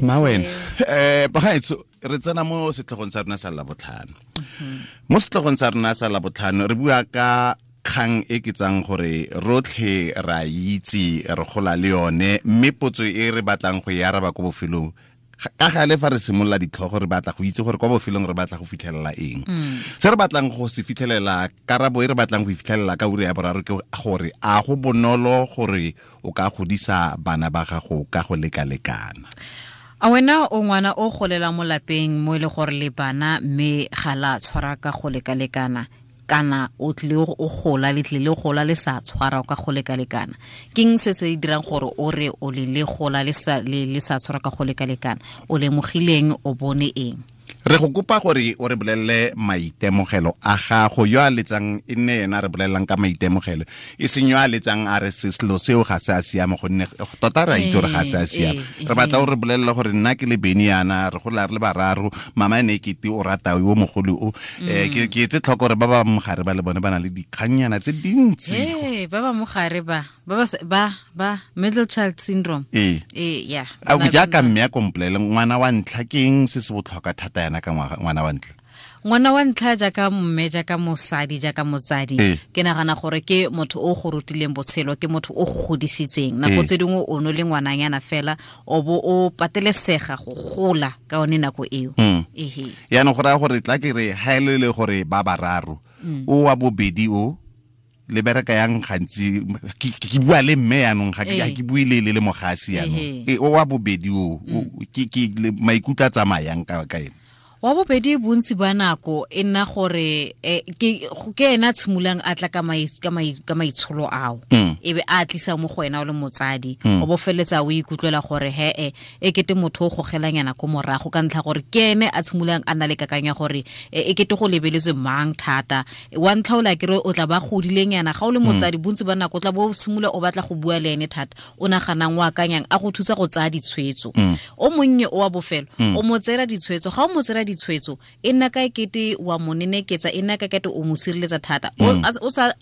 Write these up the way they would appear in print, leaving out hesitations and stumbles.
Ma wena bagaetsho, re tsena mo setlhogong sa rona sa Labotlhano. Mo setlhogong sa rona sa Labotlhano re bua ka kgang e ke tsang gore rotlhe ra itse, re gola le yone, mme potso e re batlang go e araba ko bofelong, ka gale fa re simolola ditlhogo re batla go itse gore kwa bofelong re batla go fitlhelela eng. Se re batlang go se fitlhelela, karabo e re batlang go e fitlhelela ka ura ya boraro ke gore a go bonolo gore o ka godisa bana ba gago ka go lekalekana. A wena o ngwana o golela mo lapeng mo e le gore le bana mme ga la tshwara ka go lekalekana, kana o tlile o gola le tlile gola le sa tshwara ka go lekalekana? Keng se se dirang gore o re o le le gola le sa le sa tshwara ka go lekalekana? O lemogileng, o bone eng? Re go kopa gore o re bolelele maitemogelo a gago. Yo a letsang e nne yena a re bolelelang ka maitemogelo, e seng yo a letsang a re selo seo ga se a siama, gonne tota re a itse gore ga se a siama. Re batla o re bolelele gore nna ke le Beni yana, re gola re le bararo, mama ene e kete o rata yo mogolo o. Ke etse tlhoko gore ba ba mogare ba le bone ba na le dikgannyana tse dintsi. Ba ba mogare ba ba middle child syndrome. Ya. A o jaaka mme a komplele ngwana wa ntlha, ke eng se se botlhokwa thata yana ka ngwana wa ntlha? Ngwana wa ntlha jaaka mme, jaaka mosadi, jaaka motsadi, ke nagana gore ke motho o go rutileng botshelo, ke motho o go godisitseng. Nako tse dingwe o no le ngwananyana fela, o bo o patelesega go gola ka one nako eo. Yaanong go raya gore tla ke re ha e le gore ba bararo, o wa bobedi o le bereka yang gantsi, ke bua le mme yaanong, ga ke bue le le mogasi yaanong. O wa bobedi o, ke maikutlo a tsamayang ka ene. Wa bobedi bontsi ba nako e nna gore ke ena tshimolang a tla ka maitsholo ao, e be a tlisa mo go wena o le motsadi, o bo feletsa o ikutlwela gore he e kete motho o gogelanyana ko morago, ka ntlha gore ke ene a tshimolang a na le kakanyo ya gore e kete go lebeletswe mang thata. Wa ntlha o la kere o tla ba godilenyana, ga o le motsadi bontsi ba nako o tla bo simolola o batla go bua le ene thata, o naganang o akanyang a go thusa go tsaya ditshwetso. O monnye o wa bofelo o mo tseela ditshwetso, ga o mo tseela ditshwetso e nna ka ekete wa mo neneketsa, e nna ka ekete o mo sireletsa thata.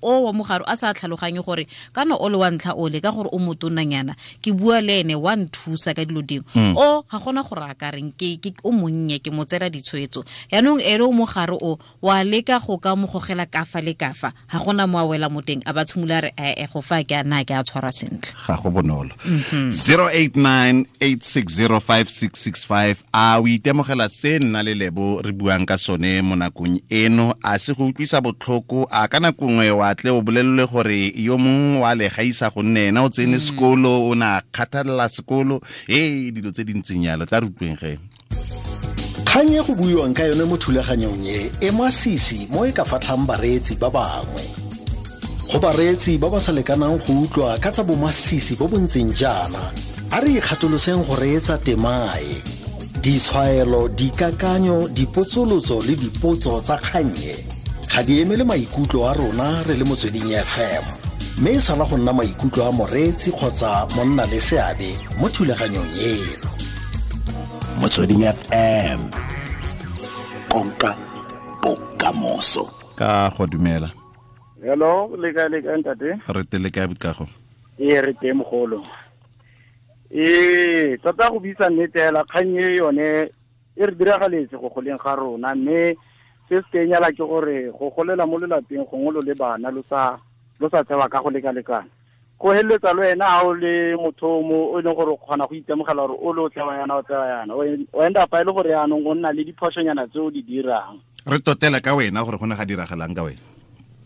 O wa mogare a sa tlhaloganye gore kana o le wa ntlha o le ka gore o motonanyana, ke bua le ene wa nthusa ka dilo dingwe. O ga gona gore a ka reng, ke o monnye ke mo tseela ditshwetso. Yaanong ene o mogare o wa leka go ka mo gogela kafa le kafa, ga gona mo a wela mo teng, a ba tshimola re go fa ke a na ke a tshwara sentle. Ga go bonolo. 0898605665. A o itemogela se nna le Lebo re buang ka sone mo nakong eno? A se go utlwisa botlhoko? A ka nako nngwe wa tle o bolelele gore yo mongwe wa le gaisa gonne ena o tsene sekolo, o na kgathalela sekolo, dilo tse di ntseng yalo. Tla re utlweng ge. Kgang e go buiwang ka yone mo thulaganyong e e masisi mo e ka fatlhang bareetsi ba bangwe. Go bareetsi ba ba sa lekanang go utlwa ka tsa bomasisi bo bo ntseng jaana, a re ikgatoloseng go reetsa temae. Ditshwaelo, dikakanyo, dipotsolotso le dipotso tsa kgang e ga di emele maikutlo a rona re le Motsweding FM, mme e sala go nna maikutlo a moreetsi kgotsa monna le seabe mo thulaganyong eno. Motsweding FM, konka bokamoso. Ka go dumela. Hello, le kae, le kae ntate? Re tele kae bokago? Ee, re teng mogolo. Tota go bitsa nnete hela, kgang e yone e re diragaletse go goleng ga rona, mme se se kenyala ke gore go golela mo lelapeng gongwe lo le bana lo sa tsewa ka go lekalekana. Go heleletsa le wena ha o le motho mo o e leng gore o kgona go itemogela gore o le o tsewa yana, o tsewa yana. O end up e le gore yaanong o nna le diphošonyana tse o di dirang. Re totela ka wena gore go ne ga diragalang ka wena.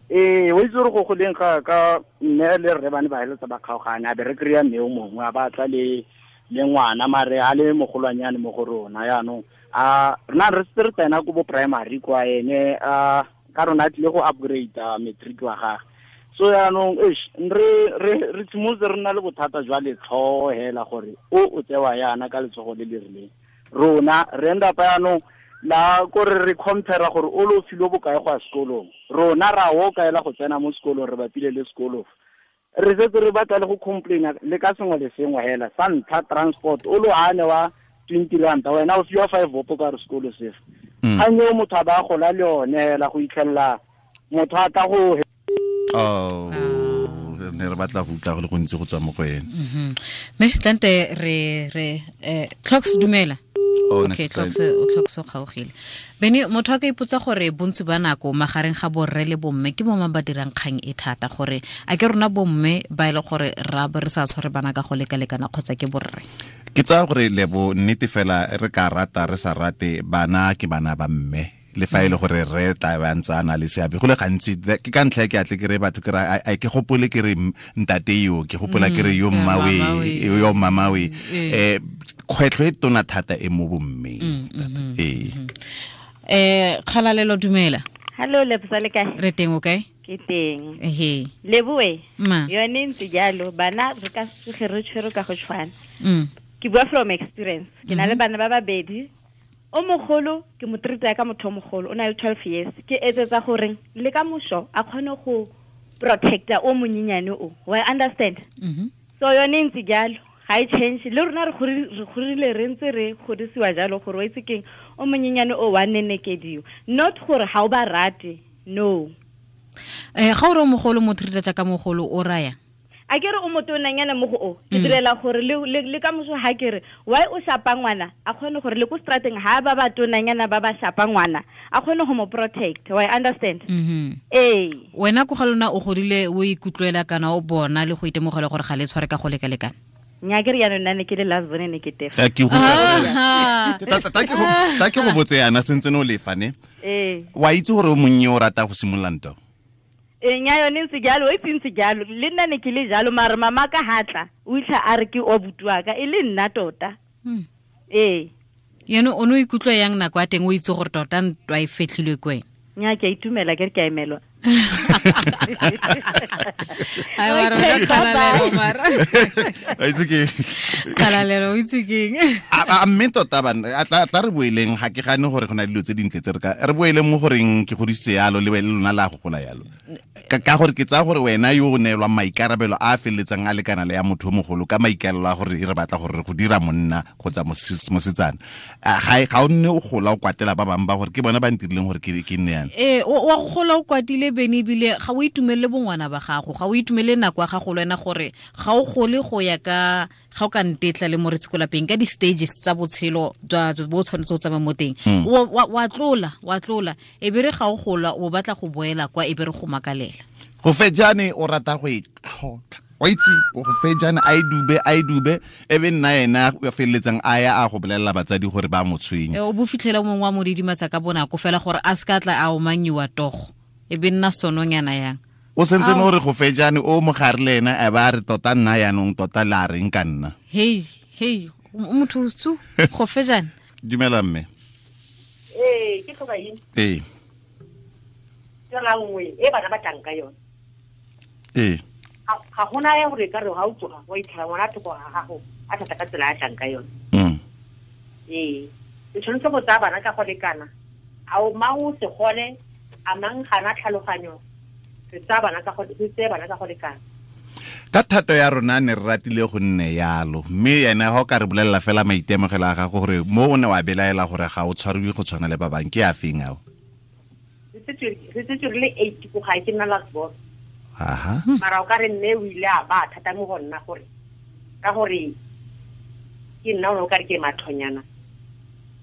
O itse gore go goleng ga ka mme le rre ba ne ba heleletsa ba kgaogane, a be re kry-a mme o mongwe a batla le ngwana, mare a le mogolwanyane mo go rona. Yaanong a rena re setse re tsena ko bo primary kwa ene, a ka rona a tlile go upgrade matric wa gagwe. So yaanong re tshimolotse re nna le bothata jwa letlhogo hela gore o tsewa yana ka letsogo le le rileng. Rona re end up yaanong la kore re compare gore o lo filwe bokae go ya sekolong, rona ra o kaela go tsena mo sekolong, re bapile le sekolo. Re setse re batla le go complaina le ka sengwe le sengwe hela. Sa ntlha transport, o lo ane wa 20 ranta, wena o fiwa 5 bopo ka re sekolo sefe. Kgang eo motho a ba gola le yone hela go itlhelela motho a tla go Oh, ne re batla go utlwa go le gontsi go tswa mo go ene. Me tlante re Clocks dumela. Okay, Clocks o kgaogile. Bene motho a ka ipotsa gore bontsi ba nako magareng ga borre le bomme ke bomang ba dirang kgang e thata, gore a ke rona bomme ba ile gore ra bo re sa tshware bana ka go lekalekana kgotsa ke borre. Ke tsaya gore lebo nnete fela re ka rata re sa rate, bana ke bana ba mme, le fa ile gore re tla ba ntse a na le seabe go le gantsi. Ke ka ntlha ke atle ke re batho ke ra a ke gopole ke re ntate yo, ke gopola ke re yo mmawe, yo mamawe. Kgwetlho e tona thata e mo bommeng. Kgalalelo dumela. Hello Lebza, le kae? Re teng, o kae? Ke teng. Ehe. Leboe. Yone ntse jalo, bana re ka se re tshwere ka go tshwana. Ke bua from experience. Ke na le bana ba babedi. O mogolo ke mo treat ka motho o mogolo, o na le 12 years. Ke etsetsa gore le ka mosho a kgone go protecta o monyenyane o. Wa understand? So yone ntse jalo, ga e change. Le rona re gorile re ntse re godisiwa jalo gore o itse keng o monyenyane o wa nenekediwa. Not gore ga o ba rate, no. Ga o re o mogolo mo treat jaaka mogolo o raya? A ke re o motonanyana mo go o, ke direla gore le ka moso ha ke re why o shapa ngwana, a kgone gore le ko strateng ha ba ba tonanyana ba ba shapa ngwana, a kgone go mo protect. Why understand? Ee. Wena ko ga lona o godile o ikutlwela kana o bona le go itemogela gore ga le tshware ka go lekalekana? Nya ke re yana nna ne ke le last bone ne ke tefa. Ke go ta ke go botse yana sentse no lefa ne. Wa itse gore o monnye o rata go simolola ntwa. Nya yone ntse jalo, o itse ntse jalo, le nna ne ke le jalo, mare mama ka hatla o itlha a re ke o butua ka e le nna tota. Ee. Yeno o no ikutlwa yang nako ya teng o itse gore tota ntwa e fetlhilwe ke wena? Nya ke a itumela, ke re ke a emelwa. Ai mara kgalalelo mara. A itse ke kgalalelo o itse keng? A mme tota bana a tla re boeleng, ga ke gane gore go na le dilo tse dintle tse re ka re boeleng mo goreng ke godisitse yalo le lona la go gola yalo. Ka gore ke tsaya gore wena yo o neelwang maikarabelo a a feleletsang a lekana le ya motho o mogolo ka maikalelo a gore re batla gore re go dira monna kgotsa mosetsana, ga o nne o gola o kwatela ba bangwe ba gore ke bona ba ntirileng gore ke nne yana. Wa go gola o kwatile bene, ebile ga o itumelele bongwana ba gago, ga o itumelele nako ya gago le wena, gore ga o gole go ya ka ga o ka ntetla le moretsi ko lapeng ka di-stages tsa botshelo bo tshwanetse go tsamaya mo teng. Wa tlola e be re ga o gola o batla go boela kwa, e be re go makalela. Go fejane o rata go e tlhotlha, wa itse go fejane a e dube e be nna ena a feleletsang a ya a go bolelela batsadi gore ba mo tshwenye. O bo fitlhela mongwe wa mo didimatsa ka bonako fela gore a se ka tla a omanyiwa togo, e be nna sononyana yang. O sentse no re go fejane o mogare le ena a ba re tota nna yanong tota la reng ka nna. Hei motho tsu go fejane. Dumela mme. Ee, ke tlhoka eng? Ee. Tsela nngwe e bana ba tlang ka yone. Ee. Ga gona ya gore ka re ga o tsoga wa itlhela ngwana thoko ga gago a thata ka tsela ya tlang ka yone. Ee. Re tshwanetse go tsaya bana ka go lekana. A o mang o se gole, a mang gana tlhaloganyo, re tsaya bana ka go lekana. Ka thato ya rona ne re ratile go nne yalo, mme ena ga o ka re bolelela fela maitemogelo a gago gore mo o ne wa belaela gore ga o tshwariwe go tshwana le ba bangwe, ke a feng ao? Re setse re le 8 ko gae, ke nna last born. Aha. Mara o ka re mme o ile a ba thata mo go nna gore ka gore ke nna o ka re ke mathonyana,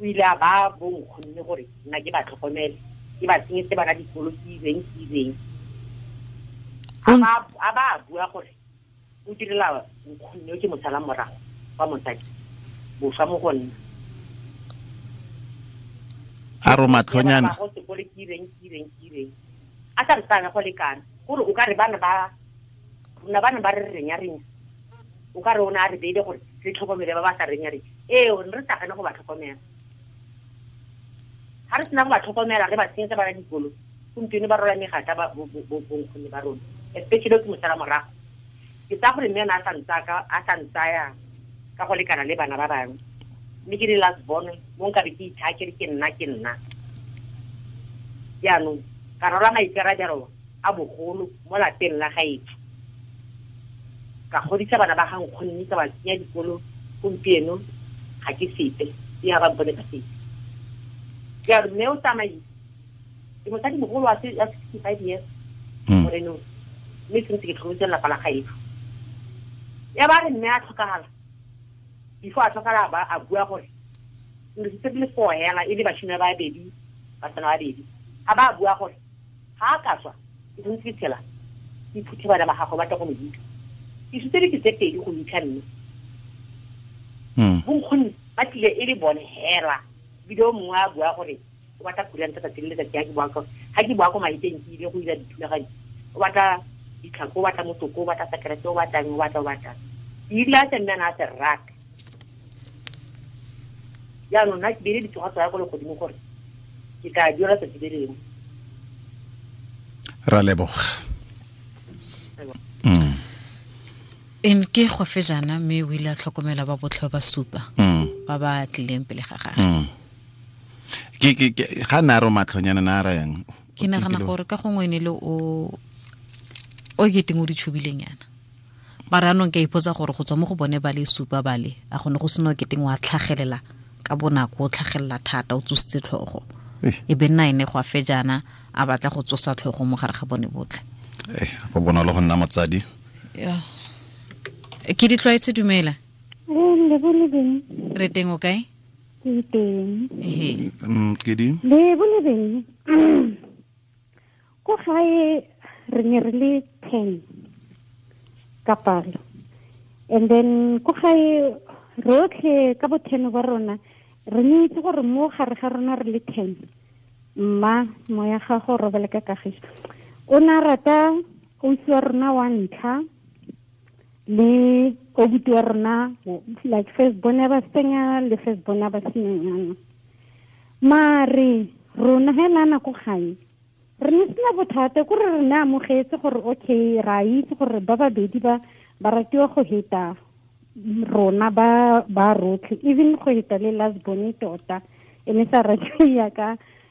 o ile a ba bo nkgonne gore nna ke ba tlhokomele, ke ba tsenyetse bana dikolo ke ireng. A ba bua gore o direla nkgonne o ke mosala morago wa mosadi boswa mo go nna. A ro matlhonyana go sekolo ke ireng. A sa re tsaya go lekana gore o ka re bana ba rona bana ba re renya, o ka re o ne a re beile gore re tlhokomele ba ba sa renya renya. Ee, re sa gane go ba tlhokomela. Ga re sena go ba tlhokomela re ba tsenyetsa bana dikolo, gompieno ba rola megata ba bonkgonne ba rona, especially ke mosala morago. Ke tsaya gore mme ene a sa ntsaya ka go lekana le bana ba bangwe, mme ke le last born mo nkabe ke ithaa ke re ke nna. Jaanong ka rola maikarabelo a bogolo mo lapeng la gaetsho, ka godisa bana ba ga nkgonne, ka ba tsenya dikolo. Gompieno ga ke sepe, e ga ba mpone ka sepe. Jaanong mme o tsamaile, ke mosadi mogolo wa 65 years. Moreno. Mme sentse ke tlhokometse lelapa la gaetsho. Ya ba re mme a tlhokagala. Before a tlhokagala ba a bua gore re setse le four hela e le bashimane ba babedi, basetsana ba babedi. A ba bua gore ga a ka tswa ke sentse ke tshela ke phuthe bana ba gagwe ba tla go mo hitlha. Ke sutse dike tse pedi go hitlha mme. Bonkgonne ba tlile e le bone hela. Ebile o mongwe a bua gore o batla kuranta tsatsi le letsatsi ga ke boa ko maeteng ke ile go ira dithulaganyo. O batla ditlhako, o batla motoko, o batla sekerete, o batlang, o batlang. Ke ile a tse mme a ne a se rata. Jaanong nna ke beile ditsoga tsa ko legodimo gore ke tla duela tsatsi le lengwe. Ra leboga. En ke go fe jana mme o ile a tlhokomela ba botlhe ba supa ba ba tlileng pele ga gagwe. Ke ga na ro matlhonyana na ra yang. Ke nagana gore ka gongwe ne le o ke teng o di tshubileng yana. Mara anong ke ipotsa gore go tswa mo go bone ba le supa ba le a gone go seno ke teng wa tlhagelela ka bonako o tlhagelela thata o tsositse tlhogo. E be nna ene go a fe jana a batla go tsosa tlhogo mo gare ga bone botlhe. Go bonolo go nna motsadi. Yeah. Ke di tlwaetse dumela. Le bone beng. Re teng o kae? Ke teng. Ehe. Ke di? Le bone beng. Ko gae re ne re le 10 ka palo. And then ko gae rotlhe ka bo 10 ba rona re ne itse gore mo gare ga rona re le 10. Mma moya gago robale ka kagiso. O na rata ausi wa rona wa ntlha le obuti wa rona like first bona ba senya le first bona ba senyana. Mare rona hela nako gae re ne sena bothata ko re ne amogetse gore okay ra itse gore ba babedi ba ba ratiwa go heta rona ba rotlhe even go heta le last bone tota e ne sa ratiwa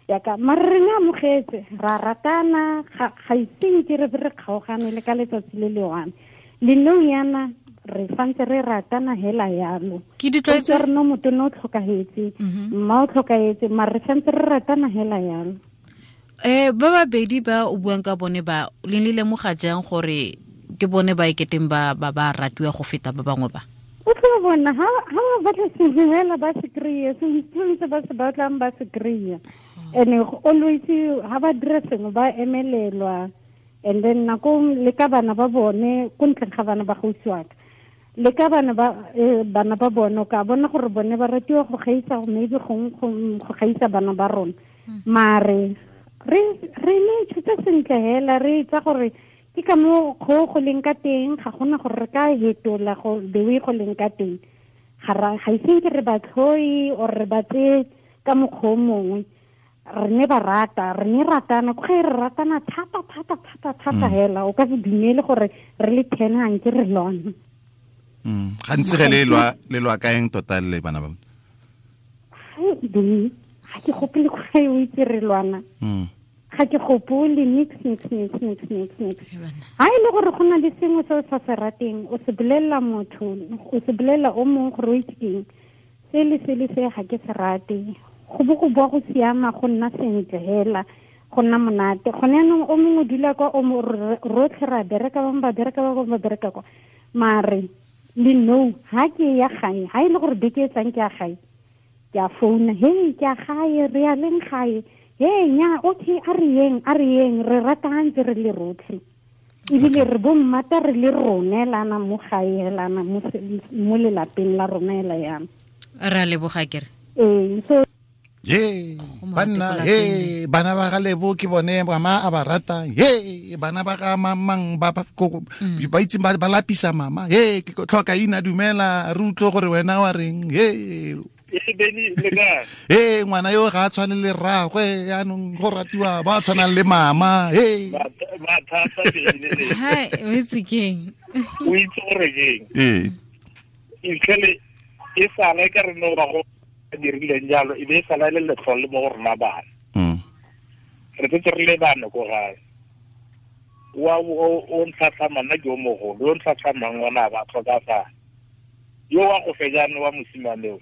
yaka mare re ne amogetse ra ratana ga iseng ke re re kgaogane le ka letsatsi le le one. Le nou yana re santse re ratana hela yalo. Ke di tlwaetse re no motho no tlhokahetse mma o tlhokahetse mare re santse re ratana hela yalo. Ba babedi ba o buang ka bone ba le le lemoga jang gore ke bone ba iketeng ba ba ratiwa go feta ba bangwe ba? O tlo bona ha ba batla sengwe hela ba se kry-e sengwe se ba se batlang ba se kry-e. And always ha ba dira sengwe ba emelelwa. And then nako le ka bana ba bone ko ntleng ga bana ba gausiwaka le ka bana ba bone o ka bona gore bone ba ratiwa go gaisa maybe go gaisa bana ba rona. Mare re ne tshutse sentle hela re itsa gore ke ka mo go leng ka teng ga gona gore re ka hetola go the way go leng ka teng. Ga iseng ke re ba tlhoi or re ba tse ka mokgwa o mongwe. Re ne ba rata re ne ratana ko re ratana thata thata thata thata hela o ka se dumele gore re le 10 hanke re lwana. Gantsi ge le lwa kaeng tota le bana ba? Ga ke gopole go gae o itse re lwana. Ga ke gopole nix. Ha e le gore go na le sengwe se o sa se rateng o se bolelela motho o se bolelela o mongwe gore o itse keng se le se le se ga ke se rate. Go bo go boa go siama go nna sentle hela go nna monate. Gone yanong o mongwe dula kwa o rotlhe ra bereka bangwe ba bereka ba bangwe ba bereka kwa. Mare le no ha ke ya gae ha e le gore beke e tlang ke ya gae ke a founa hey ke ya gae re ya leng gae hey nya okay a re yeng re ratantse re le rotlhe ebile re bo mmata re le rone lana mo gae lana mo lelapeng la rona hela yana. Ra leboga kere. So ye bana he bana ba ga Lebo ke bone mama a ba rata he bana ba ga mamang ba ba itse ba lapisa mama he ke tlhoka ina dumela re utlwe gore wena wa reng he Beni le kae he ngwana yo ga a tshwane le rragwe yaanong go ratiwa ba tshwanang le mama he ba thata Beni le hi o itse keng o itse gore keng e e sala ka re no ba go dirileng jalo e be e sala le letlhole mo go rona bana. Re tsetse re le bana ko gae wa o ntlhatlhamang nna ke o mogolo yo ntlhatlhamang ngwana ba tlhokafala yo wa go fejane wa mosimane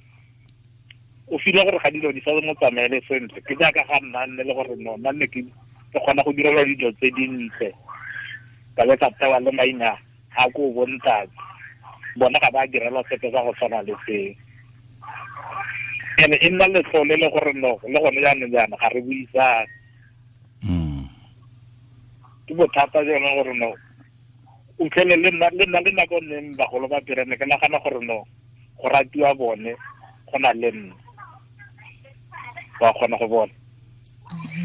o file gore ga dilo di sa mo tsamaele sentle ke jaaka ga nna nne le gore no nna nne ke kgona go direlwa dilo tse dintle Ka le ka tewa le maina a ko bontate. Bona ga ba direlwa sepe sa go tshwana le seo. Ene e nna letlole le gore no le gone jaanong jaana ga re buisane. Ke bothata jone gore no o tlhele le nna le nako neng bagolo ba direne ke nagana gore no go ratiwa bone go na le nna. Ba kgona go bona.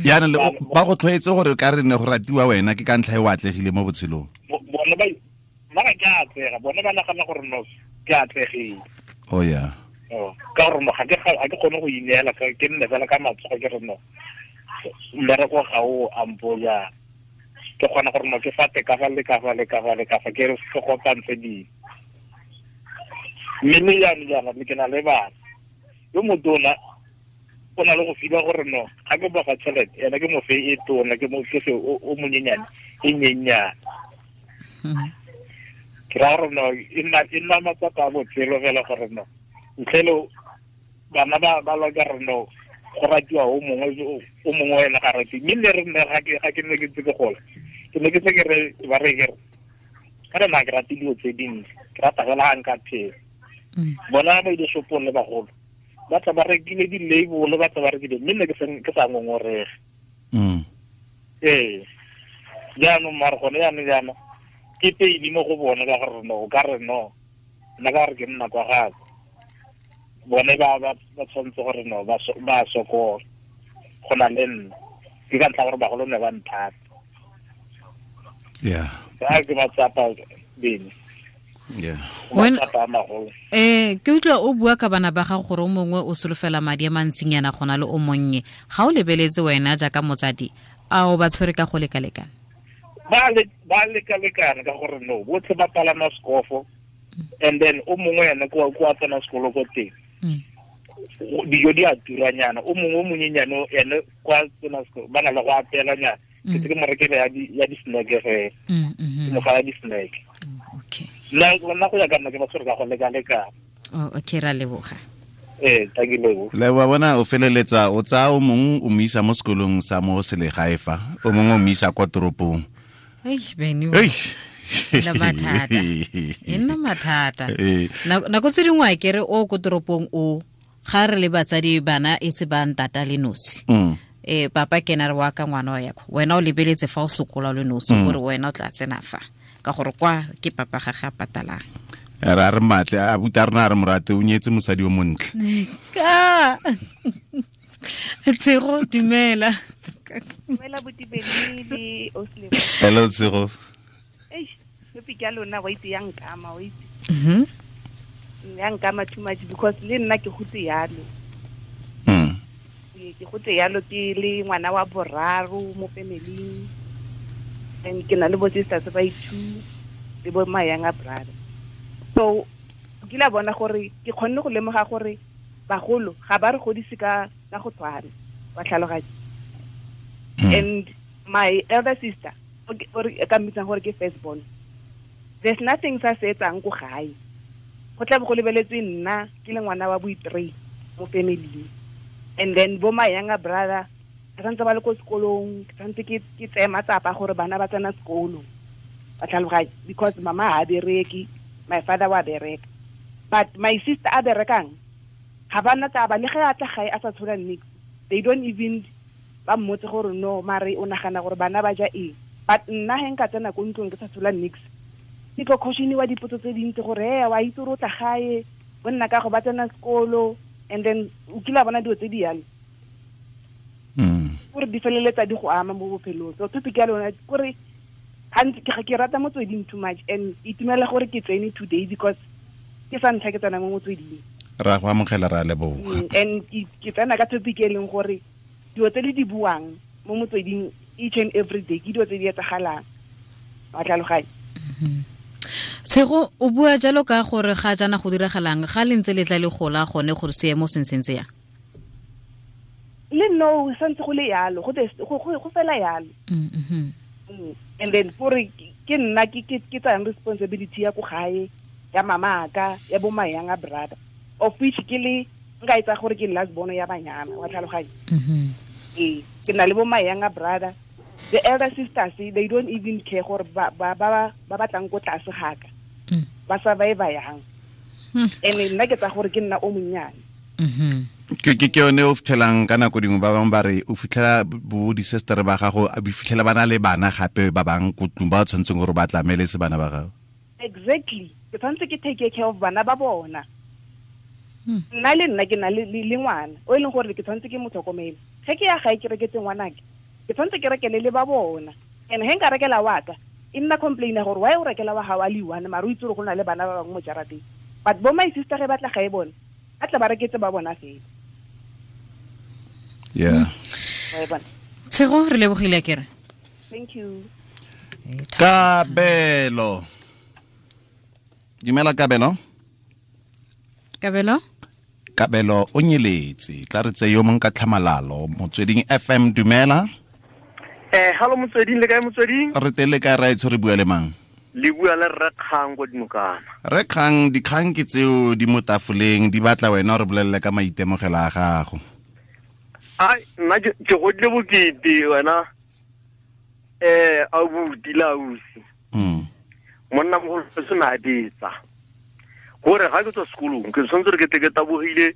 Jaanong ba go tlhoetse gore ka re ne go ratiwa wena ke ka ntlha e o atlegile mo botshelong. Bone ba nna ke atlega, bone ba nagana gore no ke atlegile. Oh yeah. Ka gore no ga ke kgone go ineela ke nne fela ka matsogo ke re no mmereko ga o ampo jang. Ke kgona gore no ke fate ka fa le ka fa le ka fa le ka fa ke re ke kopantshe dilo. Mme le jaanong jaana ke na le bana. Yo motona o na le go fiwa gore no ga ke boga tšhelete ena ke mofe e tona ke mofe o monyenyane e nyenyane. Ke ra gore no e nna matsapa a botshelo fela gore no ntle le bana ba lwa ka re no go ratiwa o mongwe ena ga rate. Mme le re nne ga ke ne ke ntse ke gola ke ne ke se ke re ba re ke re ka re nna ke rate dilo tse dintsi ke rata fela ga nka phela. Bona ba ile shopong le bagolo ba tla ba rekile di-label ba tla ba rekile mme nne ke sa ngongorege. Ee jaanong mare gone jaanong jaana ke peini mo go bone ka gore no o ka re no nna ka gore ke nna kwa gape bone ba tshwanetse gore no ba sokola go na le nna ke ka ntlha gore bagolo ne ba nthata. Yeah. Ka ke matsapa bene. Yeah. Ke utlwa o bua ka bana ba gago gore o mongwe o solofela madi a mantsinyana go na le o monnye. Ga o lebeletse wena jaaka motsadi a o ba tshwere ka go lekalekana? Ba lekalekana ka gore no botlhe ba palama sekofo and then o mongwe ene kwa tsena sekolo ko teng. Dijo di a turanyana o mongwe o monyenyane ene kwa tsena sekolo ba na le go apeelanyana. Ke tse ke mo rekele ya di-snack fela. Ke mo fa ya di-snack. Okay. Nna go ya ka nna ke ba tshwere ka go lekalekana. Oh, okay, ra leboga. Ee, thank you lebo. Leboga bona o feleletsa o tsaya o mongwe o mo isa mo sekolong sa mo selegae fa, o mongwe o mo isa kwa toropong. Eish, Benny. Eish. La mathata. E nna mathata. Nako tse dingwe a kere o ko toropong o ga re le batsadi bana e se ba ntata le nosi. Papa ke na re wa ka ngwana wa yako. Wena o lebeletse fa o sokola le nosi gore wena o tla tsena fa. Ka gore kwa ke papa ga ga patalang. Ra re matle a buta rena re morate o nyetse mosadi o montle. Ka. Tshego dumela. Dumela botibedi le Oslebo. Hello Tshego. Eish, topic ya lona wa itse ya nkama wa itse. Ya nkama too much because le nna ke gotse yalo. Ke gotse yalo ke le ngwana wa boraro mo family. And ke na le bo sisters ba two le bo my younger brother. So ke la bona gore ke kgonne go lemoga gore bagolo ga ba re godise ka go tshwana wa tlhaloganya. And my elder sister or ka mmitsang gore ke first born, there's nothing sa se etsang ko gae. Go tla bo go lebeletswe nna ke le ngwana wa bo-three mo family. And then bo my younger brother ba santse ba le ko sekolong, ke santse ke tseye matsapa gore bana ba tsena sekolo. Ba tlhaloganya because mama ha bereke, my father wa bereka. But my sister a berekang ga ba na taba le ge a tla gae a sa tshola nix. They don't even ba mmotse gore no mare o nagana gore bana ba ja eng. But nna he nka tsena ko ntlong ke sa tshola nix. Ke tlo caution-iwa dipotso tse dintsi gore he wa itse gore o tla gae, bo nna ka go ba tsena sekolo and then o kile a bona dilo tse di yalo. Gore di feleletsa di go ama mo bophelong. So topic ya lona kore gantsi ke rata motsweding too much and itumela gore ke tsene today because ke sa ntlha ke tsena mo motsweding. Ra go amogela ra leboga. And ke tsena ka topic e leng gore dilo tse le di buang mo motsweding each and every day ke dilo tse di etsagalang. Wa tlhaloganya. Tshego o bua jalo ka gore ga jaana go diragalang ga le ntse le tla le gola gone gore seemo se ntse yang. Le no santse go le yalo go fela yalo. And then gore ke nna ke tsayang responsibility ya ko gae ya mama ka ya bo my younger brother of which ke le nka etsa gore ke last born ya banyana wa tlhaloganya. Ee, ke na le bo my younger brother The elder sisters, they don't even care gore ba ba ba ba batlang ko tlase gaka. Ba survive yang. Ene nna ke tsa gore ke nna o monnyane. Ke ke yone o fitlhelang ka nako dingwe ba bangwe ba re o fitlhela bo di-sister ba gago a fitlhela ba na le bana gape ba bang ko tlung ba tshwanetseng gore ba tlamele se bana ba gago. Exactly. Ke tshwanetse ke take care of bana ba bona. Nna le nna ke na le ngwana o e leng gore ke tshwanetse ke mo tlhokomele. Ge ke ya gae ke reketse ngwanake, ke tshwanetse ke rekele le ba bona. And he nka rekela wa ka, e nna complain gore why o rekela wa gago a le one mare o itse gore go na le bana ba bangwe mo jarateng. But bo my sister ge ba tla gae bone, ba tla ba reketse ba bona fela. Yeah. Tshego re lebogile kere. Thank you. Kabelo. Dumela Kabelo. Kabelo? Kabelo o nyeletse. Tla re tse yo mong ka tlhamalalo. Motsweding FM dumela. Hello Motsweding, le kae Motsweding? Re teng le kae raetsho, re bua le mang? Le bua le Rre Kgang ko Dinokana. Rre Kgang, dikgang ke tseo di mo tafoleng, di batla wena re bolelle ka maitemogelo a gago. Ai, nna ke godile bokete wena. Abuti la ausi. Monna mogolo se na betsa. Gore ga ke tswa sekolong, ke tshwanetse re ke tle ke tabogile,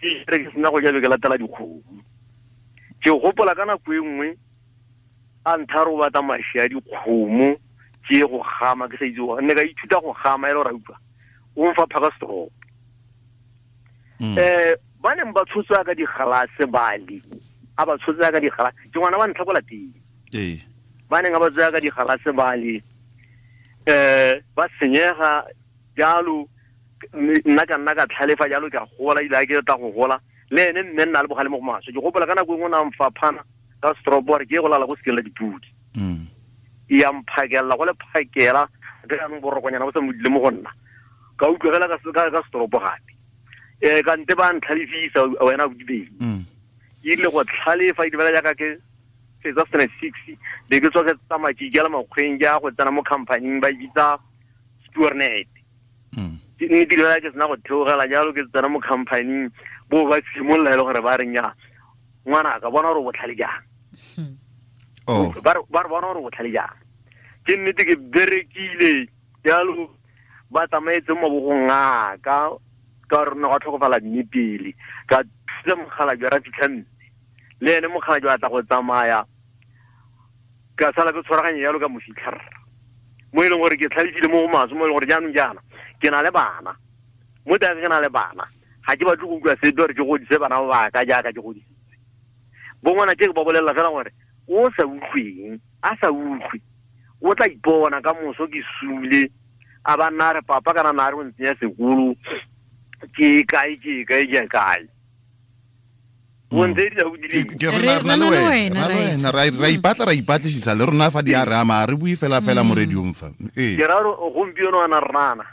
ke re ke sena go ja be ke latela dikgomo. Ke gopola ka nako e nngwe a ntharo batla mashi a dikgomo ke go gama ke sa itse go ne ka ithuta go gama e le gore a utlwa o mfa phaka stroke. Ba neng ba tshotswa ka digalase bali a ba tshotswa ka digalase ke ngwana wa ntlha ko lapeng. Ba neng ba tsaya ka digalase bali ba senyega jalo, nna ka nna ka tlhalefa jalo ke a gola ile a ke tla go gola le ene mme nna le bogale mo go maswe. Ke gopola ka nako e nngwe na mfaphana ka stroke gore ke go lala go sekeng la dipudi. E ya mphakela go le phakela ke jaanong borokonyana bo sa modile mo go nna ka utlwegela ka stroke gape. Ka nte ba ntlhalefisa wena o dibeng. E rile go tlhalefa e dibela jaaka ke fetsa standard 6 be ke tswa ke tsamaya ke ikela makgweng ke ya go tsena mo companying ba e bitsa Spoornet. Mme dilo ke sena go theogela jalo ke tsena mo companying bo ba simolola e le gore ba reng ya ngwana ka bona gore o botlhale jang. Ba re bona gore o botlhale jang. Ke nnete ke berekile jalo ba tsamaetse mo mabogong a ka ka re ne go tlhokofala mme pele ka thusa mogala jwa ra fitlha mme le ene mogala jwa tla go tsamaya ka sala ke tshwaraganye jalo ka mo fitlha mo e leng gore ke tlhalefile mo go maswe mo e leng gore jaanong jaana ke na le bana mo teng ke na le bana ga ke batle go utlwa sepe gore ke godise bana ba ka jaaka ke godisitse. Bo ngwana ke ba bolelela fela gore o sa utlweng a sa utlwe o tla ipona ka moso ke sule a ba nna re papa kana na re o ntsenya sekolo ke kae ke kae ke kae. Re ipatla ra ipatlisisa le rona fa di a re ama re bue fela fela mo radiong fa. Ke ra gore gompieno ana rnana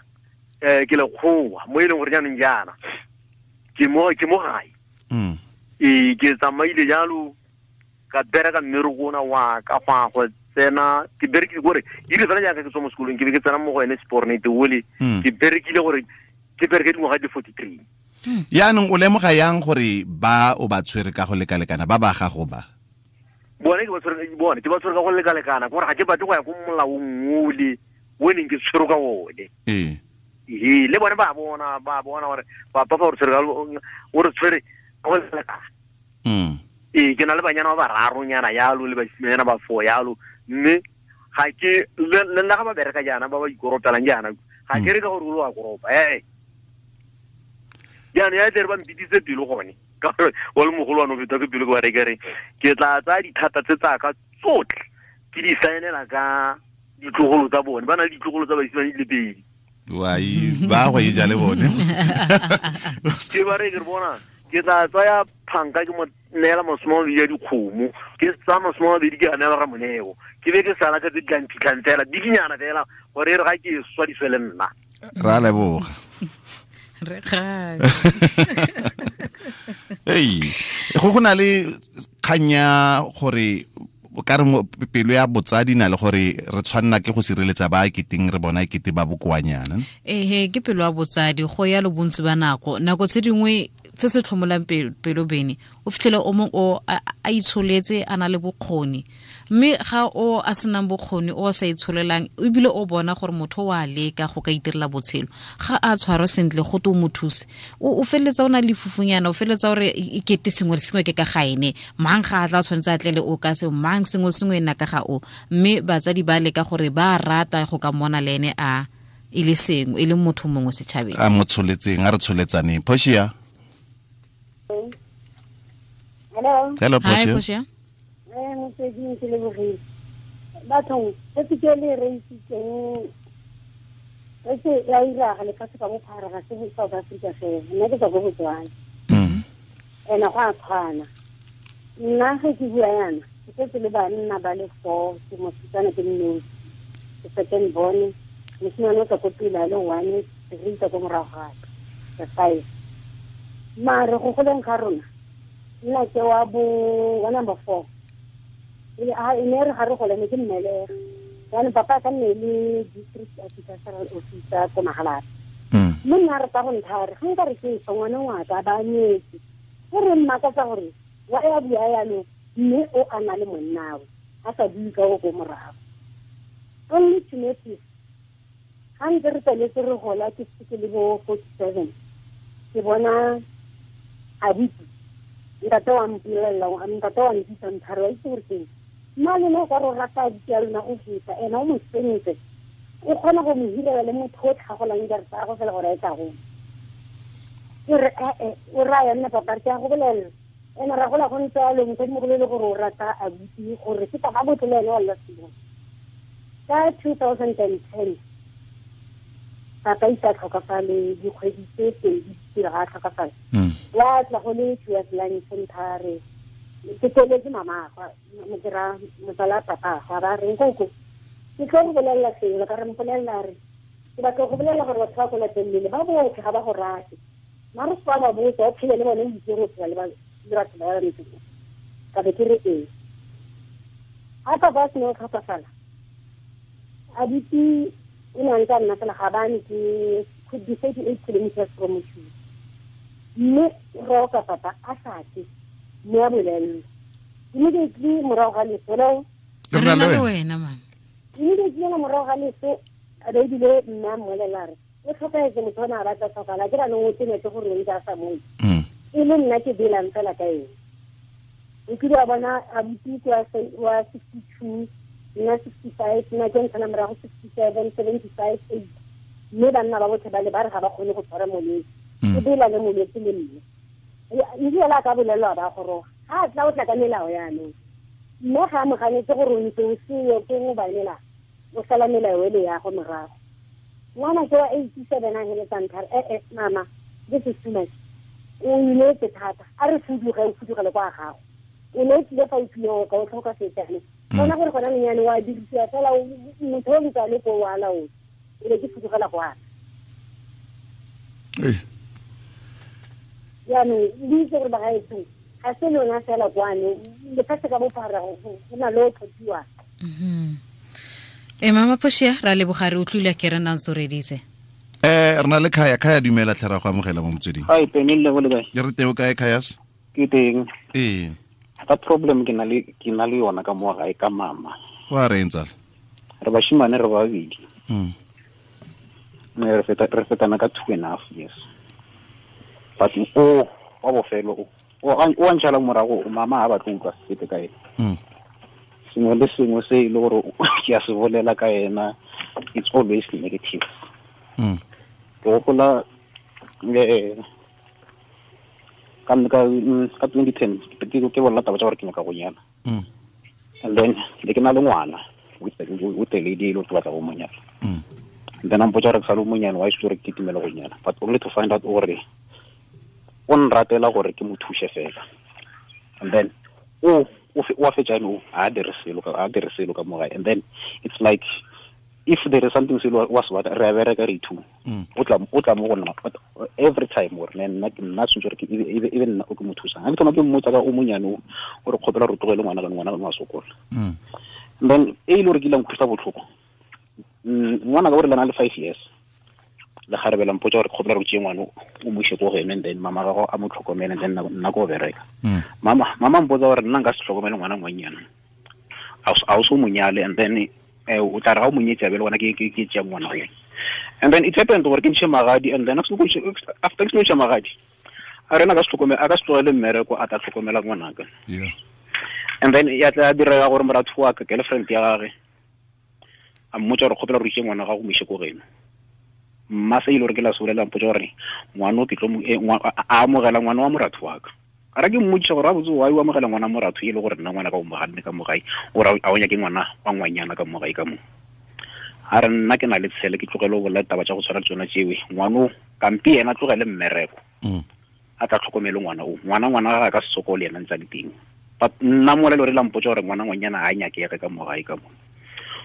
ke lekgowa mo e leng gore jaanong jaana ke mo gae. Ke tsamaile jalo ka bereka mmereko ona wa ka go go tsena ke berekile gore e rile fela jaaka ke tswa mo sekolong ke be ke tsena mo go ene Spoornet ole ke berekile gore ke bereke dingwaga di 43. Yaanong o lemoga yang gore ba o ba tshwere ka go lekalekana ba ba gago ba? Bone ke ba tshwere, bone ke ba tshwere ka go lekalekana gore ga ke batle go ya ko molaong ole o neng ke tshwere ka one. Le bone ba bona gore papa fa o re tshwere ka o re tshwere ka go lekalekana. Ke na le banyana ba bararonyana yalo le basimanyana ba four yalo mme ga ke le nna ga ba bereka jaana ba ba ikoropelang jaana ga ke re ka gore o a koropa jaanong ya tle re ba mpitise pelo gone ka gore wa le mogolo wa no feta ke pelo ke ba re ke ke tla tsaya dithata tse tsaka tsotlhe ke di saenela ka ditlogolo tsa bone ba na le ditlogolo tsa basimane di le pedi. Wai ba go e ja le bone. Ke ba re ke bona ke tla tsaya phanka ke mo neela masome a mabedi a dikgomo ke tsaya masome a mabedi ke a neela Ramoneo ke be ke sala ka tse di tlang phitlhang fela dikinyana fela gore e re ga ke swa di swe le nna. Ra leboga. Re ga. Ei, go na le kganya gore o ka re pelo ya botsadi na le gore re tshwanna ke go sireletsa ba keteng re bona kete ba bokoanyana. Ehe, ke pelo ya botsadi go ya lo bontsi ba nako. Nako tse dingwe se se tlhomolang pelo bene o fitlhele o mong o a itsholetse a na le bokgoni mme ga o a senang bokgoni o sa itsholelang ebile o bona gore motho wa leka go ka itirela botshelo ga a tshwarwa sentle go to mo thuse o feletsa o na le fufunyana o feletsa gore e kete sengwe le sengwe ke ka ga ene mang ga a tla tshwanetse a tlele o ka se mang sengwe sengwe nna ka ga o mme batsadi ba leka gore ba rata go ka mona le ene a e le sengwe e le motho mongwe setšhabeng a mo tsholetseng a re tsholetsaneng. Portia. Hello. Hello Portia. Hi Portia. Motsweding ke lebogile. Bathong se ke le reisitseng re se ya iraga lefatshe ka bophara ga se South Africa fela nna ke tswa ko Botswana. Ena go a tshwana. Nna ge ke bua yana ke setse le banna ba le 4 ke mosetsana ke nnosi ke second born mosimane o tswa ko pele a le 1 re itsa ko morago ga ka 5 mare go goleng ga rona nna ke wa bo wa number 4 e ne re ga re gole ne ke mmelege jaanong papa ka nne le district agricultural officer ko Magalapa mme nna re tsa go nthare ga nka re ke fa ngwana ngwaka ba nyetse e re mmakatsa gore wa ya bua yalo mme o a na le monnawe a sa bue ka o ko morago. Only to notice ga ntse re tsweletse re gola ke se ke le bo 47 ke bona abuti ntate wa mpolelela ntate wa nkitsa nthare wa itse gore keng mma lona o ka re o rata abuti ya lona go feta ena o mo sentse o kgona go mo hirela le motho o tlhagolang diarata go fela gore a e tla go ke re ee o raya nna papa re ke a go bolelela ena ra gola go ntse a le mosadimogolo e le gore o rata abuti gore ke taba botle le ene wa lla sengwe. Ka 2010 papa isa tlhokafale dikgwedi tse pedi pele ga a tlhokafale wa tla go le towards lunch nthare ke tsweletse mamagwe ke ra motsala papa ga ba reng koko ke tlo go bolelela sengwe ka re mpolelela re ke batla go bolelela gore batho ba ko lapeng lele ba botlhe ga ba go rate mare se ba botsa o phele le bone o itse go phela le batho ba ba ntse ka be ke re ee ga papa a sena go tlhokafala abuti o ne a ntse a nna fela ga bane ke could be 38 kilometers from Moshupa mme roka papa a sa tle mme a bolelelwa immediately morago ga leso re na le wena mama immediately morago ga leso a be ebile mme a mmolelela re o tlhokafetse motho o ne a batla tlhokala ke ranong o tenetse gore o ntse a sa moe e le nna ke belang fela ka ene o kile wa bona abuti wa 62 nna 65 nna ke ntshana morago 67 75 8 mme banna ba botlhe ba le ba re ga ba kgone go tshwara molwetse o bela le molwetse le mme ebile a ka bolelwa ba goroga ga a tla o tla ka melao yaanong mme ga a moganetse gore o ntse o seyo ke go banela o sala melao ele ya go morago ngwana ke wa 87 a heletsang thare ee mama this is too much o inetse thata a re fuduge o fudugele kwa gago o ne o tlile fa o tlile ka o tlhoka setsane bona gore gona lenyane wa dirisiwa fela motho o ntse a le ko wa laola e be ke fudugela go ana jaanong le itse gore bagaetsong ga se lona fela kwano lefatshe ka bophara go na le o tlhophiwang. E mama Portia ra leboga re utlwile ke re nang soreditse. Re na le Khaya. Khaya dumela tlhe ra go amogela mo motsweding. Hi Penile go le kae? Ke re teng o kae Khayas? Ke teng. Ee. Ka problem ke na le yona ka mo gae ka mama. Wa re ntsala. Re bashimane re babedi. Re fetana ka 2.5 years. But o wa bofelo o a ntšhala morago mama ha batlo utlwa sepe ka ena. Sengwe le sengwe se e le gore ke a se bolela ka ena it's always negative. Ke gopola ka 2010 ke bolela taba tsa gore ke nyaka go nyala. And then le ke na le ngwana with the lady e le ke batla go mo nyala. And then a mpotsa gore ke sa le monyane wa itse gore ke itumela go nyala but only to find out gore o nratela gore ke mo thuse fela. And then o fetsa no a dire selo ka mo gae. And then it's like if there is something selo wa se batla re a bereka re two o tla mo go nna every time gore nna tshwanetse gore ke ebe nna o ke mo thusang ga ke thoma ke mmotsa ka o monyane o re kgopela re tlogele ngwana ka ngwana wa sokola. And then e ile gore ke ile nkutlwisa botlhoko ngwana ka gore le na le 5 years Le ga re bela mpotsa gore kgopela re tšee ngwana o mo ise ko go ene, and then mama gago a mo tlhokomele, and then nna ko bereka. Mama mpotsa gore nna nka se tlhokomele ngwana ngwanyana, a o so mo nyale, and then o tla re ga o mo nyetse a be le gona ke tšea ngwana o. And then it happened gore ke ntšhe magadi, and then after ke ntšhe magadi, a rena ka se tlhokomele, a ka se tlogele mmereko a tla tlhokomela ngwanaka. And then ya tla direga gore moratho wa ka, girlfriend ya gagwe, a mmotsa gore kgopela gore itse ngwana gago mo ise ko geno. Mma se ile gore ke la solela mpotsa gore ngwana o ke tlo a amogela ngwana wa moratho wa ka. A re ke mmotsa gore a botse wa o amogela ngwana moratho e le gore nna ngwana ka o moganne ka mogae, o ra a o nyake ngwana wa ngwanyana ka mogae ka mo. A re nna ke na le tshele ke tlogele go bolela taba tša go tshwana le tsona tšewe, ngwana o kampi yena tlogele mmereko, a tla tlhokomele ngwana o, ngwana ga ka se sokole yena ntse a le teng. But nna mola le gore la mpotsa gore ngwana ngwanyana ga a nyakege ka mogae ka mo.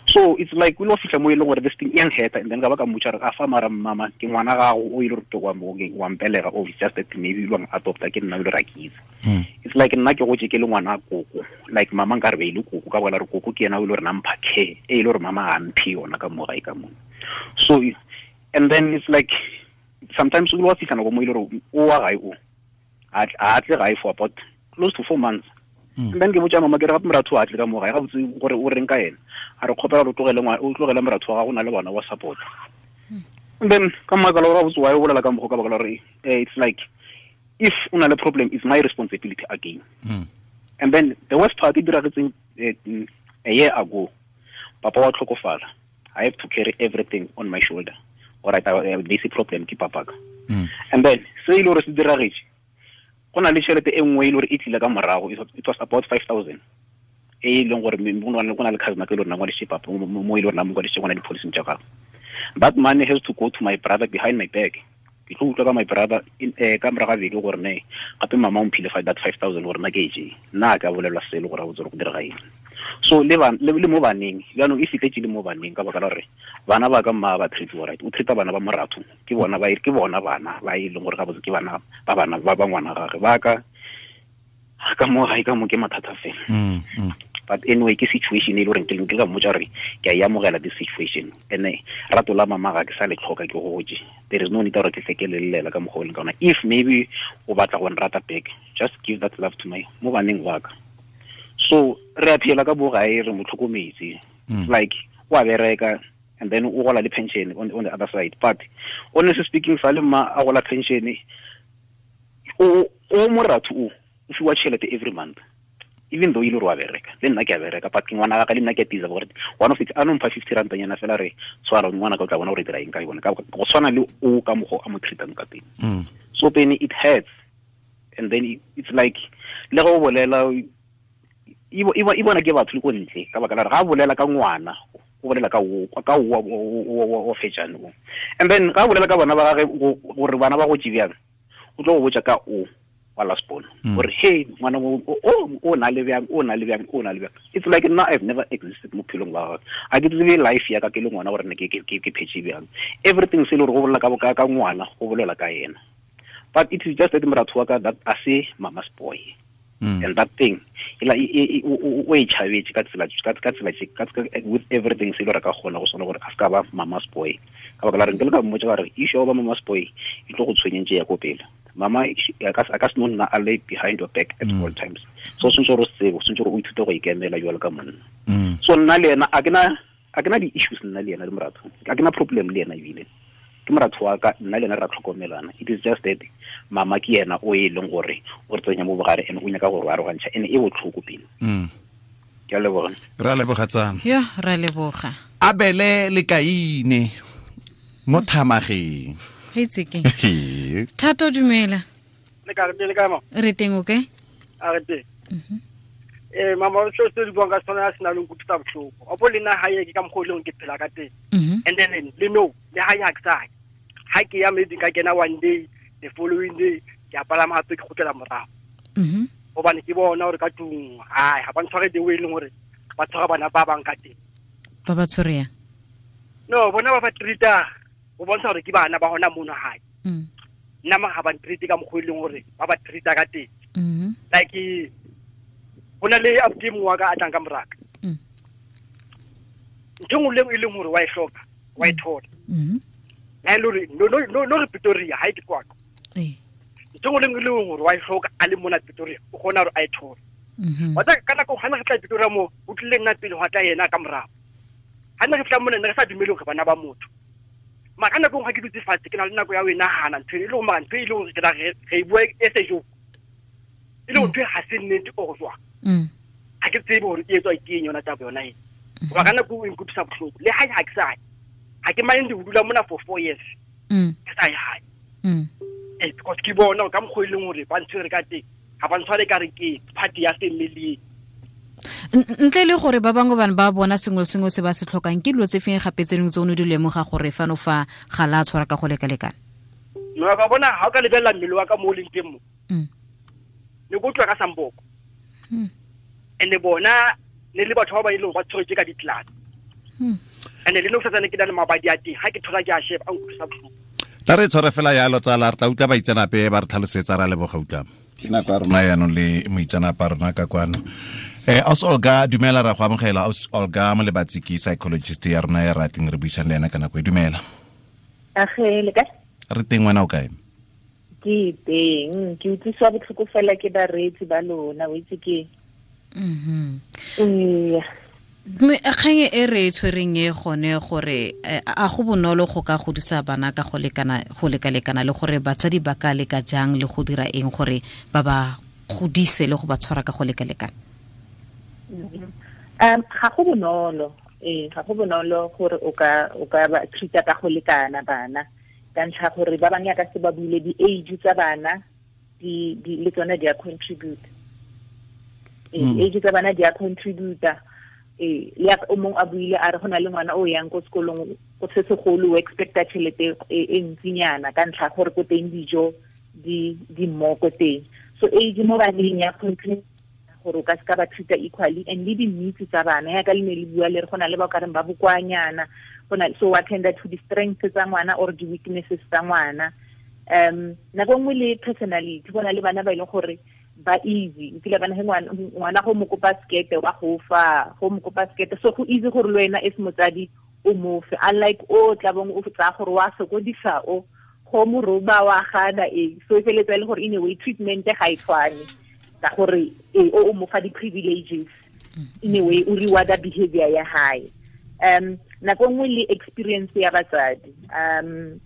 So it's like we lo fihla mo e leng gore this thing e nkgetha, and then ka ba ka mmotsa gore a fa mara mama ke ngwana gago o ile gore wa mpelega, o it's just that maybe o adopta ke nna o ile ra ke itse. It's like nna ke gotse ke le ngwana koko, like mama nka re be ile koko ka bona re koko ke yena o ile gore nampha care e ile gore mama a mphe yona ka mogae ka mo. So and then it's like sometimes o lo fihla nako mo ile gore o wa gae o a tle gae for about close to 4 months. And then ke botsa mama ke re gape moratho a tle ka mogae ga botse gore o reng ka ena, a re kgopela gore o tlogele moratho wa gago na le bona wa support. And then ka makala gore botse wa o bolela ka mokgwa ka baka la gore it's like if o na le problem it's my responsibility again. And then the worst part e diragetseng a year ago, papa wa tlhokofala, I have to carry everything on my shoulder. All right, this problem ke papa ka. And then se ile gore se diragetse, go na le tšhelete e nngwe e le gore e tlile ka morago, it was about 5,000 e leng gore go na le cousin ke le rona ngwadisitse papa mo e le rona mo ngwadisitse ngwana di-policy tša gagwe. That money has to go to my brother behind my back. Ke tlo utlwa ka my brother ka morago ga beke gore ne gape mama o mphile that 5,000 gore nna ke e jee, nna a ka bolelwa selo gore a botse gore go direga eng. So le mo baneng jaanong e fitlhetse le mo baneng ka baka la gore bana ba ka mma ba treat right, o treata bana ba moratho ke bona ba ke bona bana ba e leng gore ga botse ke bana ba bana ba ba ngwana gagwe ba ka ka mo gae ka mo ke mathata fela. But anyway ke situation e le gore ke ka mmotsa gore ke a e amogela this situation, and rato la mama ga ke sa le tlhoka ke gotse, there is no need gore ke tle ke lelela ka mokgwa o leng ka ona. If maybe o batla go nrata back, just give that love to my mo baneng ba ka. So re a phela ka bogae re mo tlhokometse, like wa bereka and then o gola le pension on the other side. But honestly speaking, fa le mma a gola pension o moratho o fiwa tšhelete every month, even though ile gore wa bereka le nna ke a bereka, but ke ngwana ka le nna ke a tiza gore one of it a no mpha 50 rand nyana fela re tshwara ngwana ka o tla bona gore dira eng ka yone, ka go tshwana le o ka mogo a mo treatang ka teng. So pene it hurts, and then it's like le go bolela e bona ke batho le ko ntle ka baka la gore ga bolela ka ngwana o bolela ka o fetšane o, and then ga bolela ka bana ba gagwe gore bana ba go tšebjang, o tlo go botša ka o wa last born gore hey ngwana o na le bjang, o na le bjang, o na le bjang. It's like nna I've never existed mo phelong ba gagwe, a ke tsebe life ya ka ke le ngwana gore ne ke phetse bjang. Everything se le gore go bolela ka ngwana go bolela ka yena, but it is just that moratho wa ka that a se mama's boy. And that thing o e tšhabetse ka tsela with everything se le gore ka kgona go swana gore a se ka ba mama's boy, ka baka la re nke le ka mmotsa ka re issue ya go ba mama's boy e tlo go tshwenyentse ya ko pele. Mama a ka se no nna a lay behind your back at all times, so tshwanetse gore o tsebe, tshwanetse gore o ithute go ikemela jwalo ka monna. So nna le ena a ke na di-issues nna le ena le moratho, a ke na problem le ena, ebile ke moratho wa ka nna le ena re a tlhokomelana. It is just that mama ke yena o e leng gore o re tsenya mo bogare and o nyaka gore o arogantšha, and e botlhoko pele. Ke a leboga. Re a leboga tsana. Yo, re a leboga. Abele le Kaine mo thamageng. Itse ke. Thato dumela. Le ka re le ka mo. Re teng okay? A re teng. Mama o se di buang ka sona a sena le nkutlwisa bohloko. Opo le nna hae ke ka mokgwa o leng ke phela ka teng. And then le no le hae ha ke sa. Ha ke ya maybe ka kena one day, the following day ke a palama hape ke kgutlela morago. Hobane ke bona hore ka tlung hai ha ba ntshware the way leng hore ba tshwara bana ba bang ka teng. Ba ba tshware yang? No, bona ba ba treata o bontsha hore ke bana ba hona mono hae. Nna ma ha ba ntreat ka mokgwa e leng hore ba ba treata ka teng. Like hona le abuti mongwe wa ka a tlang ka moraka. Ntho nngwe le e leng hore wa e hloka, wa e thola. La le re no no no re Pretoria ha ke kwa. Eh. Ntho le nngwe le nngwe gore wa e hloka a le mona Pretoria o kgona gore a e thole. Wa tsa ka nako ga ne re tla Pretoria mo o tlile nna pele go tla yena ka morago. Ha ne re tla mona ne re sa dumele gore bana ba motho. Mara ka nako ga ke dutse fatshe ke na le nako ya ho e nahana ntho e le gore mara ntho e le gore ke tla re e bua e se jo. E le gore ntho e ga se nnete or jwang. Ha ke tsebe gore e etswa ke eng yona taba yona e. Goba ka nako e nkutlwisa bohloko le ha ke sa ye. Ha ke mind ho dula mona for 4 years. Ke sa ye hae. Because ke bona ka mokgwa e leng hore ba ntshwere ka teng ga ba ntshware ka re ke party ya family. Ntle le gore ba bangwe bana ba bona sengwe sengwe se ba se tlhokang ke dilo tse feng gape tse dingwe tse o ne di lemoga gore fano fa ga la tshwara ka go lekalekana? No ka bona ha o ka lebella mmele wa ka mo o leng teng mo. Ne go utlwa ka samboko. Ene bona ne le batho ba ba ileng ba tshweretse ka ditlana. Ene le no sa tsane ke na le mabadi a teng ha ke thola ke a sheba a nkutlwisa bohloko. Tla re tshware fela yalo tsala re tla utlwa baitseanape ba re tlhalosetsa ra leboga utlwa. Ke nako ya rona yaanong le moitseanape a rona ka kwano. Aus Olga dumela ra go amogela. Aus Olga Molebatsi ke psychologist ya rona ya rating re buisang le ena ka nako e. Dumela. Age le kae? Re teng, wena o kae? Ke teng, ke utlwiswa botlhoko fela ke bareetsi ba lona, o itse ke. Mme kgang e re e tshwereng e gone gore a go bonolo go ka godisa bana ka go lekana go lekalekana le gore batsadi ba ka leka jang le go dira eng gore ba ba godise le go ba tshwara ka go lekalekana? Ga go bonolo, ga go bonolo gore o ka ba treata ka go lekana bana ka ntlha gore ba bangwe ka se ba buile di-age tsa bana di le tsone di a contribute. Age tsa bana di a contributa. Le o mongwe a buile a re go na le ngwana o yang ko sekolong go se segolo o expecta tšhelete e ntsinyana ka ntlha gore ko teng dijo di mmo ko teng. So age mo baneng ya contribute gore o ka se ka ba treata equally, and le di-needs tsa bana yaka le ne le bua le re go na le ba o ka reng ba bokoanyana, go na so attend to the strengths tsa ngwana or the weaknesses tsa ngwana. Nako nngwe le personality, go na le bana ba e leng gore ba easy, nkile bana he ngwana go mo kopa sekete wa go fa, go mo kopa sekete, so go easy gore le wena as motsadi o mo fe, unlike o tla bong o tsaya gore wa sokodisa o go mo roba wa gana so e feletsa e le gore in a way treatment ga e tshwane ka gore o mo fa di-privileges in a way o rewarda behavior ya hae. Nako nngwe le experience ya batsadi.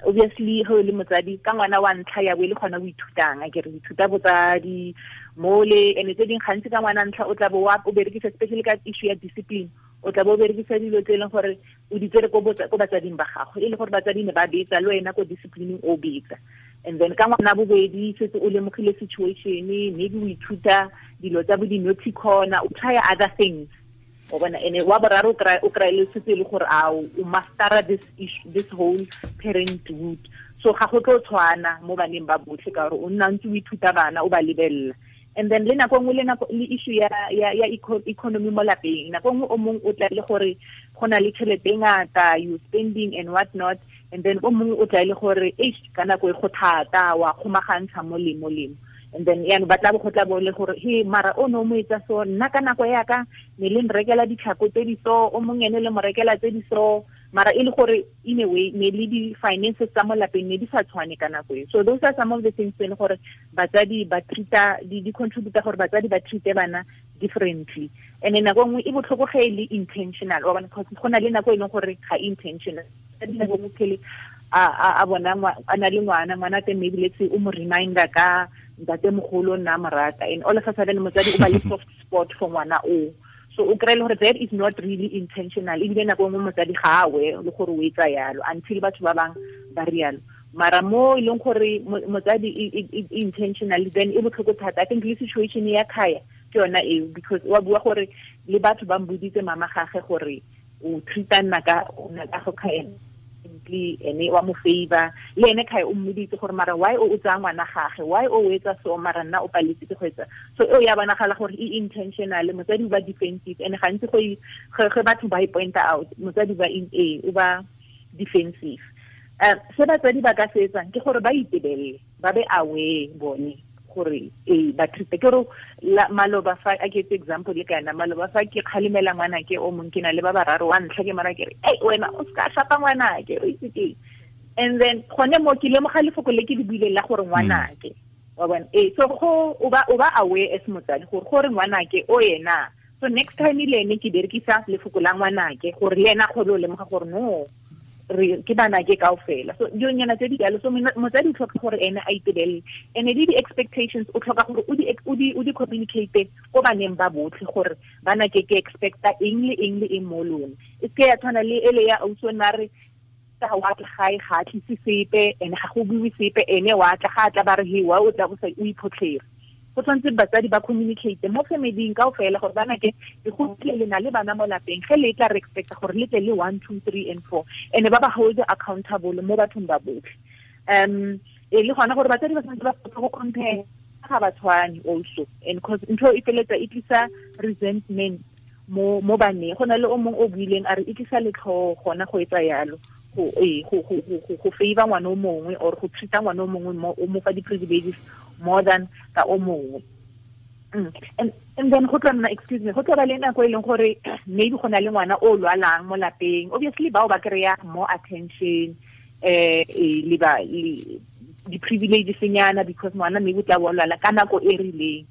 Obviously ge o le motsadi ka ngwana wa ntlha ya bo e le gona o ithutang, a ke re ithuta botsadi mole ene tse dingwe gantsi ka ngwana ntlha o tla bo o berekisa especially ka issue ya discipline, o tla bo o berekisa dilo tse e leng gore o di tsere ko batsading ba gago, e le gore batsadi ne ba betsa le wena ko disciplining o betsa. And then ka ngwana bobedi setse o lemogile situation, maybe o ithuta dilo tsa bo di-naughty corner, o try other things. O bona ene wa boraro o kry le setse le gore a o mastera this issue, this whole parenthood. So ga go tlo tshwana mo baneng ba botlhe ka gore o nna ntse o ithuta bana o ba lebella. And then le nako nngwe le nako le issue ya economy mo lapeng, nako nngwe o mongwe o tla le gore go na le tšhelete e ngata, you spending and what not, and then o mongwe o tla le gore eish ka nako e go thata wa kgomagantsha mo le mo le. And then yaanong ba tla bo go tla bo le gore he mara o ne o mo etsa so, nna ka nako ya ka ne le nrekela ditlhako tse di so, o mongwe ene le mo rekela tse di so, mara e le gore in a way ne le di-finances tsa mo lapeng ne di sa tshwane ka nako e. So those are some of the things tse e leng gore batsadi ba treata di contributa gore batsadi ba treate bana differently. And then nako nngwe e botlhoko ge e le intentional, wa bona, because go na le nako e leng gore ga intentional. Nako nngwe phele a bona a na le ngwana teng maybe let's say o mo reminder ka ntate mogolo nna morata, and all of a sudden motsadi o ba le soft spot for ngwana o. So o kry-e le gore that is not really intentional, ebile nako nngwe motsadi ga a we le gore o etsa yalo until batho ba bang ba rialo. Mara mo e leng gore motsadi intentional, then e botlhoko thata. I think le situation ya Khaya ke yona eo, because wa bua gore le batho ba mboditse mama gage gore o treata nna ka go Khaya ene wa mo favor, le ene Khaya o mmoditse gore mara why o tsaya ngwana gage, why o etsa so, mara nna o paletse ke go etsa so. Eo ya bonagala gore e intentional, motsadi o ba defensive, and gantsi go ge batho ba e point out motsadi ba in a o ba defensive. Se batsadi ba ka se etsang ke gore ba itebelele, ba be aware bone gore ba treat ke gore maloba fa a ke etse example le kana maloba fa ke kgalemela ngwana ke o mong ke na le ba bararo wa ntlha ke mara ke re ei wena o ska shapa ngwana ke o itse ke And then gone mo ke lemoga lefoko le ke le buileng la gore ngwanake wa bona so go o ba aware as motsadi gore ngwanake o yena. So next time le ene ke berekisa lefoko la ngwanake gore le ena kgone o lemoga gore no re ke bana ke kaofela. So dilonyana tse di jalo. So motsadi o tlhoka gore ene a itebelele, and le di-expectations o tlhoka gore o di communicate ko baneng ba botlhe gore bana ke expecta eng le eng le eng mo lona. E seke ya tshwana le ele ya ausi o ne a re ga wa tla gae ga a tlise sepe, ene ga go buiwe sepe, ene wa tla ga a tla ba re he wa o tla o sa o iphotlhere. Go tshwanetse batsadi ba communicate mo familing kaofela gore bana ke go tle le na le bana mo lapeng, ge le tla re expecta gore le tle le 1 2 3 and 4, and ba ba hold accountable mo bathong ba botlhe. E le gona gore batsadi ba tshwanetse ba go compare ga ba tshwane also, and cause ntho e feletsa e tlisa resentment mo baneng. Go na le o mongwe o buileng a re e tlisa letlhoo gona go etsa yalo, go favor ngwana o mongwe or go treata ngwana o mongwe o mo fa di-privileges more than ka o mongwe. And then go tla nna, excuse me, go tla ba le nako e leng gore maybe go na le ngwana o lwalang mo lapeng, obviously bao ba kry-a more attention le ba di-privileges nyana because ngwana maybe o tla bo lwala ka nako e rileng.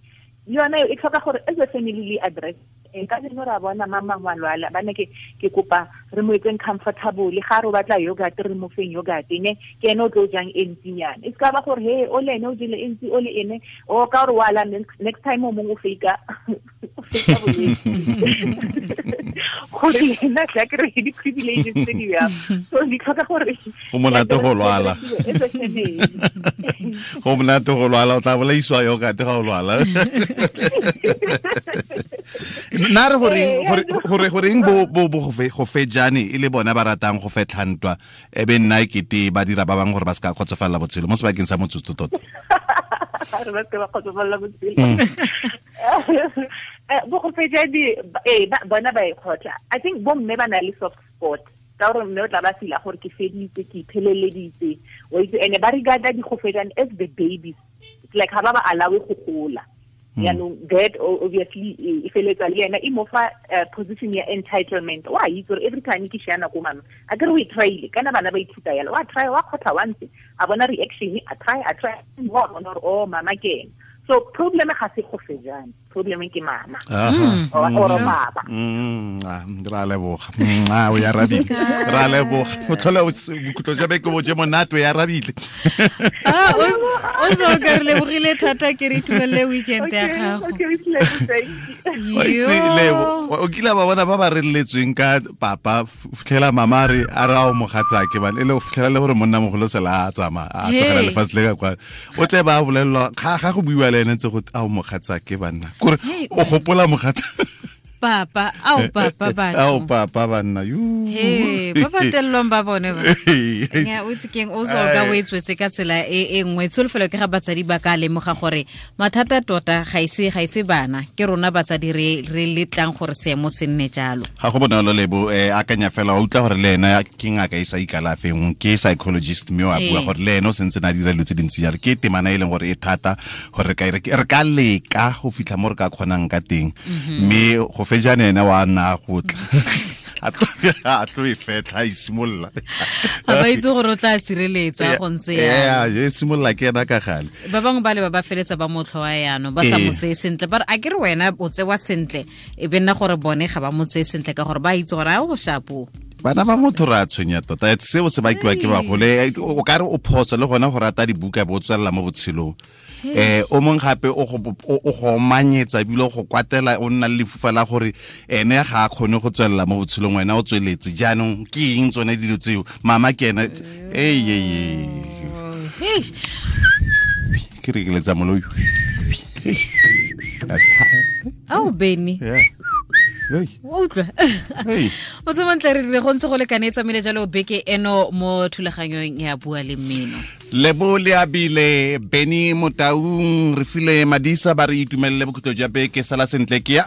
Le yona e tlhoka gore as a family le address. Ka jeno ra bona mama ngwa lwala, bana ke kopa re mo etseng comfortable, ga re batla yogurt re mo feng yogurt ne ke ene o tlo jang e ntsinyana. E ska ba gore he o le ene o jele e ntsi o le ene o ka gore wala next time o mongwe o fake bolwetse gore le ena tla kry di-privileges tse di bjang. So di tlhoka gore go monate go lwala, go monate go lwala, o tla bolaisiwa yogurt ga o lwala. Nna re goreng bo go fejane e le bona ba ratang go fetlha ntwa e be nna ekete ba dira ba bangwe gore ba se ka kgotsofalela botshelo mo sebakeng sa motsotso tota. Re ba se ba kgotsofalela botshelo. Bo go fejane bona ba e kgotla. I think bo mme ba na le soft spot ka gore mme o tla ba fila gore ke feditse, ke ipheleleditse, wa itse, ene ba regarda di-gofejane as the babies. It's like ha ba ba allowe go gola. Yaanong that obviously e feletsa le ena e mo fa position ya entitlement. Wa itse gore every time ke shana ko mama a kere o e tryile, kana bana ba ithuta yalo, wa try wa kgotha once a bona reaction, a try wa bona gore oh mama ke ena. So problem ga se go fejane, problem ke mama or baba. Ra leboga. O ya rabile. Ra leboga. O tlhola bokhutlo jwa beke bo je monate, o ya rabile. O so ka re lebogile thata, ke re itumelele weekend ya gago. Lebo, o kile ba bona ba ba reletsweng ka papa, fitlhela mama re a re a o mogatsake bana, e le o fitlhela le gore monna mogolo sela a tsamaya a tlogela lefatshe le ka kwa. O tle ba bolelelwa ga go buiwa le ene ntse go a o mogatsake banna. Kore o gopola mogatsa papa, ao papa ba. Ao papa banna. Yu. He, ba ba tellong ba bone ba. Nya o itse keng o so ka o etswetse ka tsela e nngwe. Tsholofelo ke ga batsadi ba ka lemoga gore mathata tota ga ise bana, ke rona batsadi re letlang gore seemo se nne jalo. Ga go bonolo Lebo, akanya fela wa utlwa gore le ena ke ngaka e sa ikalafeng, ke psychologist mme wa bua gore le ene o sentse na dira dilo tse dintsi jalo. Ke temana e leng gore e thata gore re ka leka go fitlha mo re ka kgonang ka teng, mme go fejane ene wa nna go tla a tlo e fetlha e simolola. A ba itse gore o tla sireletswa go ntse ya. E simolola ke ena ka gale. Ba bangwe ba le ba ba feletsa ba motlhoa yaanong ba sa mo tseye sentle, ba re a ke re wena o tsewa sentle, e be nna gore bone ga ba mo tseye sentle ka gore ba itse gore a o shapo. Bana ba motho re a tshwenya tota, seo se bakiwa ke bagole. O ka re o phoso le gona go rata dibuka bo tswelela mo botshelong. O mong gape o go omanyetsa ebile go kwatela, o nna le lefufa la gore ene ga a kgone go tswelela mo botshelong, wena o tsweletse. Jaanong ke eng tsone dilo tseo? Mama ke ena ke re ke letsa moloi. Ao Benny. O utlwa. O tsemontle re dire go ntse go lekane e tsamaile jalo beke eno mo thulaganyong ya Bua le Mmino. Lebo le abile Benny Motaung, re file Madisa ba re itumelele bokhutlo jwa beke. Sala sentle ke ya.